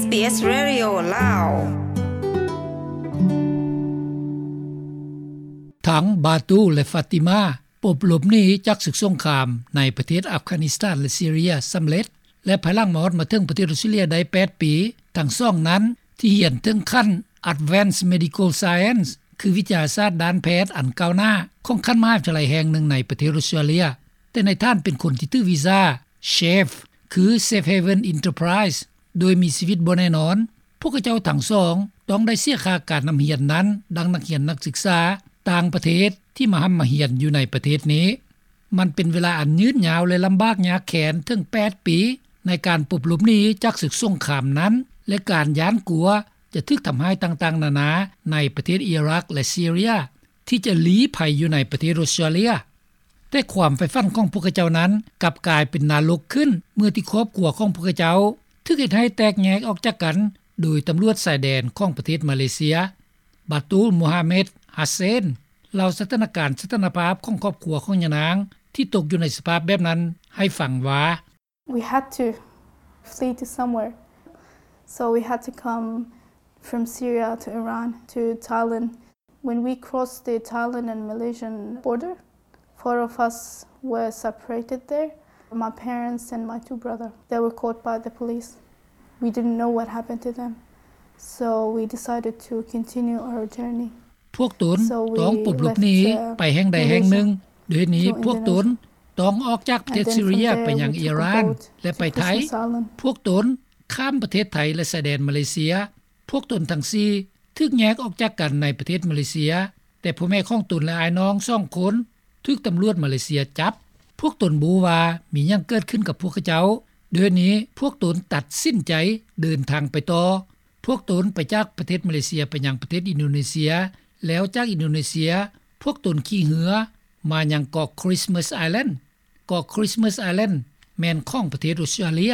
ເອສ Radio ລາວ. ທັງບາຕູ ແລະ ຟາຕິມາ ປົບຫຼົບໜີຈາກເຂດສົງຄາມໃນປະເທດອັຟການິສຖານ ແລະ ຊີເຣຍສຳເລັດ ແລະ ພາຍຫຼັງມາຮອດມາເຖິງປະເທດອົດສະຕຣາເລຍໄດ້ແປດປີ, ທັງສອງນັ້ນທີ່ຮຽນເຖິງຂັ້ນ Advanced Medical Science ຄືວິທະຍາສາດດ້ານແພດອັນກ້າວໜ້າຂອງຂັ້ນມະຫາວິທະຍາໄລແຫ່ງໜຶ່ງໃນປະເທດອົດສະຕຣາເລຍ, ແຕ່ໃນຖານເປັນຄົນທີ່ຖືກວີຊາ SHAVE ຄື Safe Haven Enterprise ໂດຍມີຊີວິດບໍ່ແນ່ນອນ. ພວກເຂົາເຈົ້າທັງສອງຕ້ອງໄດ້ເສຍຄ່າການຮ່ຳຮຽນນັ້ນ ດັ່ງນັກຮຽນນັກສຶກສາຕ່າງປະເທດທີ່ມາຮ່ຳມາຮຽນຢູ່ໃນປະເທດນີ້. ມັນເປັນເວລາອັນຍືດຍາວ ແລະ ລຳບາກຍາກແຄ້ນເຖິງແປດປີ ໃນການປົບຫຼົບໜີຈາກເຂດສົງຄາມນັ້ນ ແລະ ການຢ້ານກົວຈະຖືກທຳຮ້າຍຕ່າງໆນານາໃນປະເທດອີຣັກ ແລະ ຊີເຣຍ ທີ່ຈະລີ້ໄພຢູ່ໃນປະເທດອົດສະຕຣາເລຍ. ແຕ່ຄວາມໃຝ່ຝັນຂອງພວກເຂົາເຈົ້ານັ້ນກັບກາຍເປັນນະລົກຂຶ້ນ ເມື່ອທີ່ຄອບຄົວຂອງພວກເຂົາເຈົ້າຖືກເຮັດໃຫ້ແຕກແຍກອອກຈາກກັນໂດຍຕຳຫຼວດຊາຍແດນຂອງປະເທດມາເລເຊຍ. ບາຕູ ມູຮາເມັດ ຮາເຊນ ເລົ່າສະຖານະການສະຖານະພາບຂອງຄອບຄົວຂອງຍານາງທີ່ຕົກຢູ່ໃນສະພາບແບບນັ້ນໃຫ້ຟັງວ່າ: We had to flee to somewhere. So we had to come from Syria to Iran to Thailand. When we crossed the Thailand and Malaysian border, four of us were separated there. My parents and my two brothers, they were caught by the police. We didn't know what happened to them. So we decided to continue our journey. ພວກຕົນຕ້ອງປົບຫຼົບໜີໄປແຫ່ງໃດແຫ່ງໜຶ່ງ. ດ້ວຍເຫດນີ້ພວກຕົນຕ້ອງອອກຈາກປະເທດຊີເຣຍໄປຍັງອີຣານ ແລະ ໄປໄທ. ພວກຕົນຂ້າມປະເທດໄທ ແລະ ຊາຍແດນມາເລເຊຍ. ພວກຕົນທັງສີ່ຖືກແຍກອອກຈາກກັນໃນປະເທດມາເລເຊຍ, ແຕ່ພໍ່ແມ່ຂອງຕົນ ແລະ ອ້າຍນ້ອງສອງຄົນຖືກຕຳຫຼວດມາເລເຊຍຈັບ. ພວກຕົນບໍ່ຮູ້ວ່າມີຫຍັງເກີດຂຶ້ນກັບພວກເຂົາເຈົ້າ. ດ້ວຍເຫດນີ້ພວກຕົນຕັດສິນໃຈເດີນທາງໄປຕໍ່. ພວກຕົນໄປຈາກປະເທດມາເລເຊຍໄປຍັງປະເທດອິນໂດເນເຊຍ, ແລ້ວຈາກອິນໂດເນເຊຍ ພວກຕົນຂີ່ເຮືອມາຍັງເກາະ Christmas Island. ເກາະ Christmas Island ແມ່ນຂອງປະເທດອົດສະຕຣາເລຍ.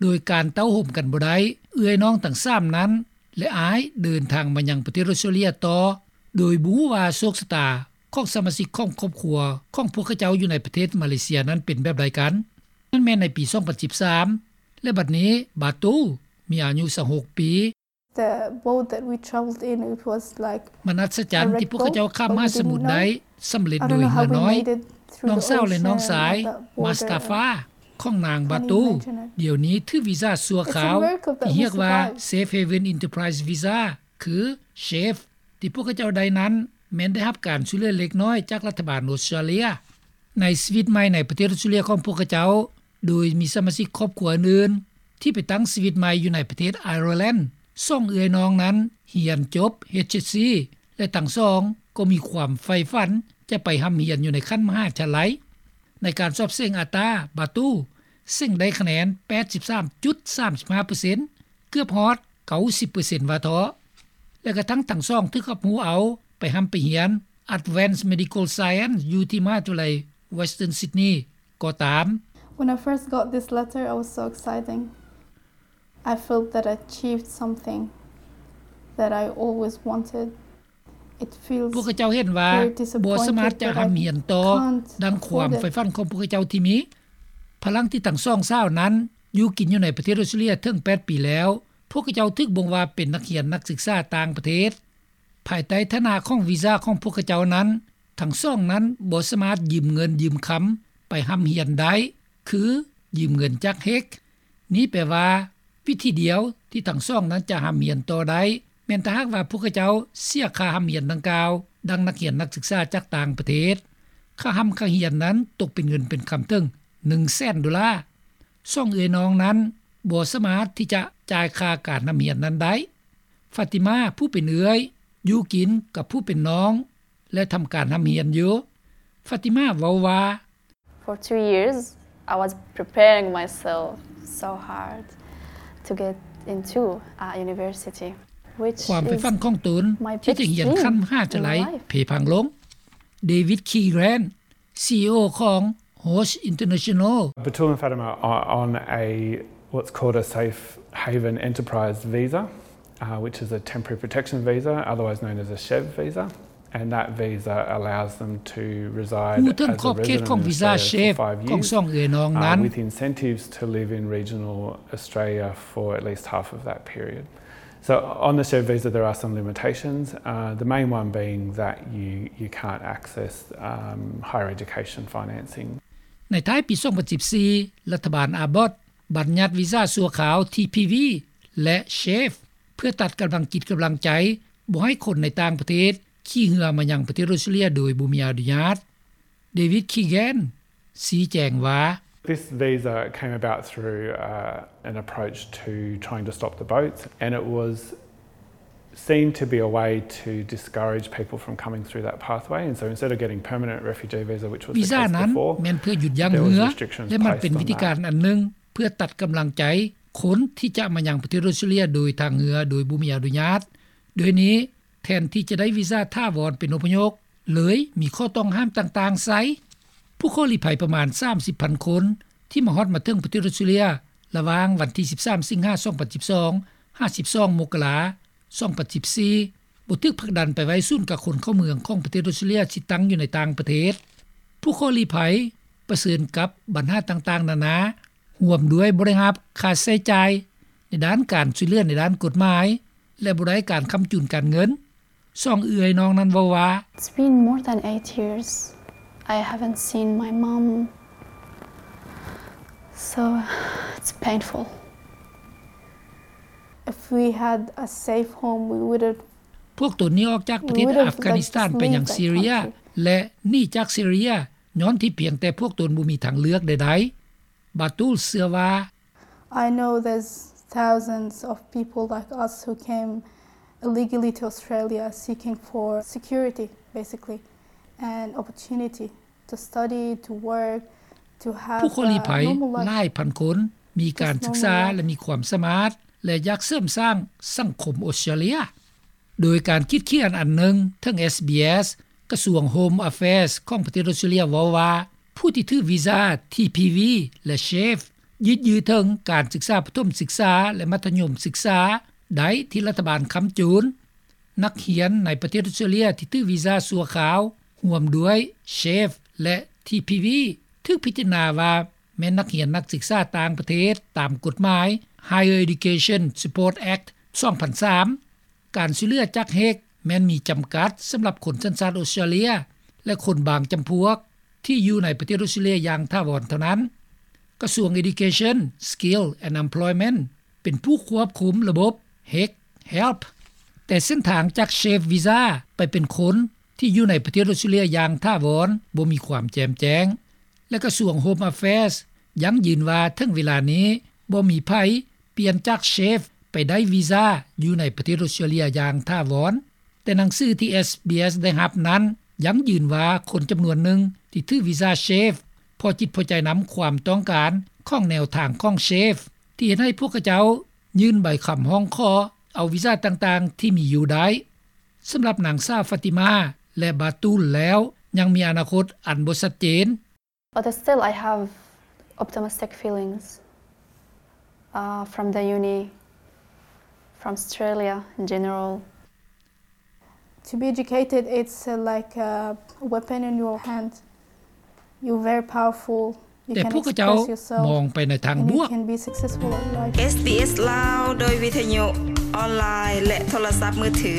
ໂດຍການເຕົ້າໂຮມກັນບໍ່ໄດ້, ເອື້ອຍນ້ອງທັງສາມນັ້ນ ແລະ ອ້າຍເດີນທາງມາຍັງປະເທດອົດສະຕຣາເລຍຕໍ່ ໂດຍບໍ່ຮູ້ວ່າໂຊກຊະຕາຂອງສະມາຊິກຂອງຄອບຄົວຂອງພວກເຂົາເຈົ້າຢູ່ໃນປະເທດມາເລເຊຍນັ້ນເປັນແບບໃດກັນ. ນັ້ນແມ່ນໃນປີສອງພັນສິບສາມ ແລະ ບັດນີ້ບາຕູມີອາຍຸຊາວຫົກປີ. The boat that we traveled in, it was like ມັນອັດສະຈັນທີ່ພວກເຂົາເຈົ້າຂ້າມມະຫາສະໝຸດໄດ້ສຳເລັດໂດຍເຮືອນ້ອຍ. ນ້ອງສາວ ແລະ ນ້ອງຊາຍມາສຕາຟາຂອງນາງບາຕູ ດຽວນີ້ຖືກວີຊາຊົ່ວຄາວທີ່ຮຽກວ່າ Safe Haven Enterprise Visa ຄື SHAVE ທີ່ພວກເຂົາເຈົ້າໄດ້ນັ້ນ ແມ່ນໄດ້ຮັບການຊ່ວຍເຫຼືອເລັກນ້ອຍຈາກລັດຖະບານອົດສະຕຣາເລຍ. ໃນຊີວິດໃໝ່ໃນປະເທດອົດສະຕຣາເລຍຂອງພວກເຂົາເຈົ້າ ໂດຍມີສະມາຊິກຄອບຄົວອື່ນໆທີ່ໄປຕັ້ງຊີວິດໃໝ່ຢູ່ໃນປະເທດໄອຣແລນ. ສອງເອື້ອຍນ້ອງນັ້ນຮຽນຈົບ HSC ແລະ ທັງສອງກໍມີຄວາມໃຝ່ຝັນຈະໄປຮ່ຳຮຽນຢູ່ໃນຂັ້ນມະຫາວິທະຍາໄລ. ໃນການສອບເສັງ ATA, ບາຕູເສັງໄດ້ຄະແນນ ແປດສິບສາມຈຸດສາມຫ້າເປີເຊັນ ເກືອບຮອດ ເກົ້າສິບເປີເຊັນ ວ່າເທາະ. ແລະ ກະທັ່ງທັງສອງຖືກຮັບຮູ້ເອົາໄປຮ່ຳໄປຮຽນ Advanced Medical Science ຢູ່ທີ່ມະຫາວິທະຍາໄລ Western Sydney ກໍຕາມ. When I first got this letter, I was so exciting. I felt that I achieved something that I always wanted. It feels very disappointed, but I can't hold it. ພວກເຂົາເຈົ້າເຫັນວ່າບໍ່ສາມາດຈະຮ່ຳຮຽນຕໍ່ດັ່ງຄວາມໃຝ່ຝັນຂອງພວກເຂົາເຈົ້າທີ່ມີ. ພາຍຫຼັງທີ່ທັງສອງສາວນັ້ນຢູ່ກິນຢູ່ໃນປະເທດອົດສະຕຣາເລຍເຖິງແປດປີແລ້ວ, ພວກເຂົາເຈົ້າຖືກບົ່ງວ່າເປັນນັກຮຽນນັກສຶກສາຕ່າງປະເທດ. ພາຍໃຕ້ຖານະຂອງວີຊາຂອງພວກເຂົາເຈົ້ານັ້ນ, ທັງສອງນັ້ນບໍ່ສາມາດຢືມເງິນຢືມຄຳໄປຮ່ຳຮຽນໄດ້ ຄືຢືມເງິນຈາກເຮັກ. ນີ້ແປວ່າ ວິທີດຽວທີ່ທັງສອງນັ້ນຈະຮ່ຳຮຽນຕໍ່ໄດ້ ແມ່ນຖ້າຫາກວ່າພວກເຂົາເຈົ້າເສຍຄ່າຮ່ຳຮຽນດັ່ງກ່າວ ດັ່ງນັກຮຽນນັກສຶກສາຈາກຕ່າງປະເທດ. ຄ່າຮ່ຳຄ່າຮຽນນັ້ນຕົກເປັນເງິນເປັນຄຳເຖິງໜຶ່ງແສນໂດລາ. ສອງເອື້ອຍນ້ອງນັ້ນບໍ່ສາມາດທີ່ຈະຈ່າຍຄ່າການຮ່ຳຮຽນນັ້ນໄດ້. ຟາຕິມາ ຜູ້ເປັນເອື້ອຍ ຢູ່ກິນກັບຜູ້ເປັນນ້ອງ ແລະ ທຳການຮ່ຳຮຽນຢູ່. ຟາຕິມາເວົ້າວ່າ For two years, I was preparing myself so hard to get into a university, which is my biggest dream in life. ຄວາມໃຝ່ຝັນຂອງຕົນທີ່ຈະຮຽນຂັ້ນມະຫາວິທະຍາໄລເພພັງລົງ. ເດວິດ ຄີແຣນ ຊີອີໂອຂອງ Roche International. Batul and Fatima are on a, what's called a Safe Haven Enterprise visa, uh, which is a temporary protection visa, otherwise known as a SHAVE visa. And that visa allows them to reside ຮູ້ເຖິງຂອບເຂດຂອງວີຊາ SHAFE ຂອງສອງເອື້ອຍນ້ອງນັ້ນ with incentives to live in regional Australia for at least half of that period. So on the SHAFE visa there are some limitations, the main one being that you you can't access higher education financing. ໃນທ້າຍປີສອງພັນສິບສີ່ ລັດຖະບານ Abbott ບັນຍັດວີຊາຊົ່ວຄາວ TPV ແລະ SHAFE ເພື່ອຕັດກຳລັງຈິດກຳລັງໃຈ ບໍ່ໃຫ້ຄົນໃນຕ່າງປະເທດຂີ່ເຮືອມາຍັງປະເທດອົດສະຕຣາເລຍໂດຍບໍ່ມີອະນຸຍາດ. David Keegan ຊີ້ແຈງວ່າ This visa came about through an approach to trying to stop the boats, and it was seen to be a way to discourage people from coming through that pathway, and so instead of getting permanent refugee visa, which was the case before, ແມ່ນເພື່ອຢຸດຢັ້ງເຮືອ ແລະມັນເປັນວິທີການອັນໜຶ່ງ ເພື່ອຕັດກຳລັງໃຈຄົນທີ່ຈະມາຍັງປະເທດອົດສະຕຣາເລຍໂດຍທາງເຮືອໂດຍບໍ່ມີອະນຸຍາດ. ໂດຍນີ້ ແທນທີ່ຈະໄດ້ວີຊາຖາວອນເປັນອົບພະຍົບ ເລີຍມີຂໍ້ຕ້ອງຫ້າມຕ່າງໆໃສ່. ຜູ້ຂໍລີ້ໄພປະມານສາມສິບພັນຄົນ ທີ່ມາຮອດມາເຖິງປະເທດອົດສະຕຣາເລຍ ລະຫວ່າງວັນທີສິບສາມ ສິງຫາ ສອງພັນສິບສອງ ຫາ ສິບສອງ ມົກກະລາ ສອງພັນສິບສີ່ ບໍ່ຖືກຜັກດັນໄປໄວ້ສູນກັກຄົນເຂົ້າເມືອງຂອງປະເທດອົດສະຕຣາເລຍ ທີ່ຕັ້ງຢູ່ໃນຕ່າງປະເທດ. ຜູ້ຂໍລີ້ໄພປະເຊີນກັບບັນຫາຕ່າງໆນານາ ຮ່ວມດ້ວຍບໍ່ໄດ້ຮັບຄ່າໃຊ້ຈ່າຍໃນດ້ານການຊ່ວຍເຫຼືອໃນດ້ານກົດໝາຍ ແລະ ບໍ່ໄດ້ການຄ້ຳຈູນການເງິນ. ສອງເອື້ອຍນ້ອງນັ້ນເວົ້າວ່າ It's been more than eight years I haven't seen my mom, so it's painful. If we had a safe home, we would have ພວກຕົນໜີອອກຈາກປະເທດອັຟການິສຖານໄປຍັງຊີເຣຍ ແລະ ໜີຈາກຊີເຣຍ ຍ້ອນທີ່ພຽງແຕ່ພວກຕົນບໍ່ມີທາງເລືອກໃດໆ. Batul ເຊື່ອວ່າ I know there's thousands of people like us who came illegally to Australia seeking for security, basically, and opportunity to study, to work, to have a normal life. ຜູ້ຂໍລີ້ໄພຫຼາຍພັນຄົນ ມີການສຶກສາ ແລະ ມີຄວາມສາມາດ ແລະ ຢາກເສີມສ້າງສັງຄົມອົດສະຕຣາເລຍ. ໂດຍການຄິດຂຽນອັນໜຶ່ງ ເຖິງ SBS ກະຊວງ Home Affairs ຂອງປະເທດອົດສະຕຣາເລຍເວົ້າວ່າ ຜູ້ທີ່ຖືກວີຊາ TPV ແລະ SHAFE ຍືດເຖິງການສຶກສາປະຖົມສຶກສາ ແລະ ມັດທະຍົມສຶກສາໄດ້ທີ່ລັດຖະບານຄ້ຳຈູນ. ນັກຮຽນໃນປະເທດອົດສະຕຣາເລຍທີ່ຖືກວີຊາຊົ່ວຄາວ ຮ່ວມດ້ວຍ SHAFE ແລະ TPV ຖືກພິຈາລະນາວ່າແມ່ນນັກຮຽນນັກສຶກສາຕ່າງປະເທດຕາມກົດໝາຍ Higher Education Support Act ສອງພັນສາມ. ການຊ່ວຍເຫຼືອຈາກ HECS ແມ່ນມີຈຳກັດສຳລັບຄົນສັນຊາດອົດສະຕຣາເລຍ ແລະ ຄົນບາງຈຳພວກທີ່ຢູ່ໃນປະເທດອົດສະຕຣາເລຍຢ່າງຖາວອນເທົ່ານັ້ນ. ກະຊວງ Education, Skill and Employment ເປັນຜູ້ຄວບຄຸມລະບົບ HECS Help, ແຕ່ເສັ້ນທາງຈາກ SHAFE ວີຊາໄປເປັນຄົນທີ່ຢູ່ໃນປະເທດອົດສະຕຣາເລຍຢ່າງຖາວອນບໍ່ມີຄວາມແຈ່ມແຈ້ງ. ແລະ ກະຊວງ Home Affairs ຢັ້ງຢືນວ່າເຖິງເວລານີ້ບໍ່ມີໃຜປ່ຽນຈາກ SHAFE ໄປໄດ້ວີຊາຢູ່ໃນປະເທດອົດສະຕຣາເລຍຢ່າງຖາວອນ. ແຕ່ໜັງສືທີ່ SBS ໄດ້ຮັບນັ້ນ ຢັ້ງຢືນວ່າຄົນຈຳນວນໜຶ່ງທີ່ຖືກວີຊາ SHAFE ພໍຈິດພໍໃຈນຳຄວາມຕ້ອງການຂອງແນວທາງຂອງ SHAFE ທີ່ເຮັດໃຫ້ພວກເຂົາເຈົ້າຍື່ນໃບຄຳຮ້ອງຂໍເອົາວີຊາຕ່າງໆທີ່ມີຢູ່ໄດ້. ສຳລັບນາງສາວ Fatima ແລະ Batul ແລ້ວ ຍັງມີອະນາຄົດອັນບໍ່ຊັດເຈນ. But still, I have optimistic feelings, uh, from the uni, from Australia in general. To be educated, it's, uh, like a weapon in your hand. You're very powerful. ແຕ່ພວກເຂົາເຈົ້າມອງໄປໃນທາງບວກ. You can express yourself and you can be successful at life. SBS ລາວ ໂດຍວິທະຍຸອອນລາຍ ແລະ ໂທລະສັບມືຖື.